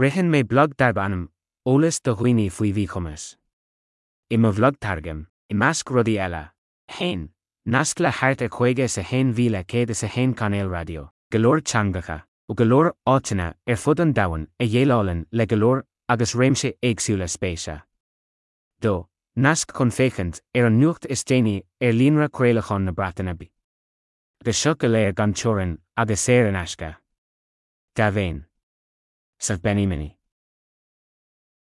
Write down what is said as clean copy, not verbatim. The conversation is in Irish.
Ritheann mé blag darb ainm Eolas do Dhaoine faoi Mhíchumas. I mo bhlag tairgim, i measc rudaí eile, 1. Nasc le thart ar 51,101 cainéal raidió, go leor teangacha, ó go leor áiteanna ar fud an domhain a dhéileálann le go leor agus réimse éagsúla spéise. 2. Nasc chun féachaint ar an nuacht is déanaí ar líonra craolacháin na Breataine Bige. Agus seo go léir gan teorainn agus saor in aisce. Dea-mhéin. Saf Benny Mini.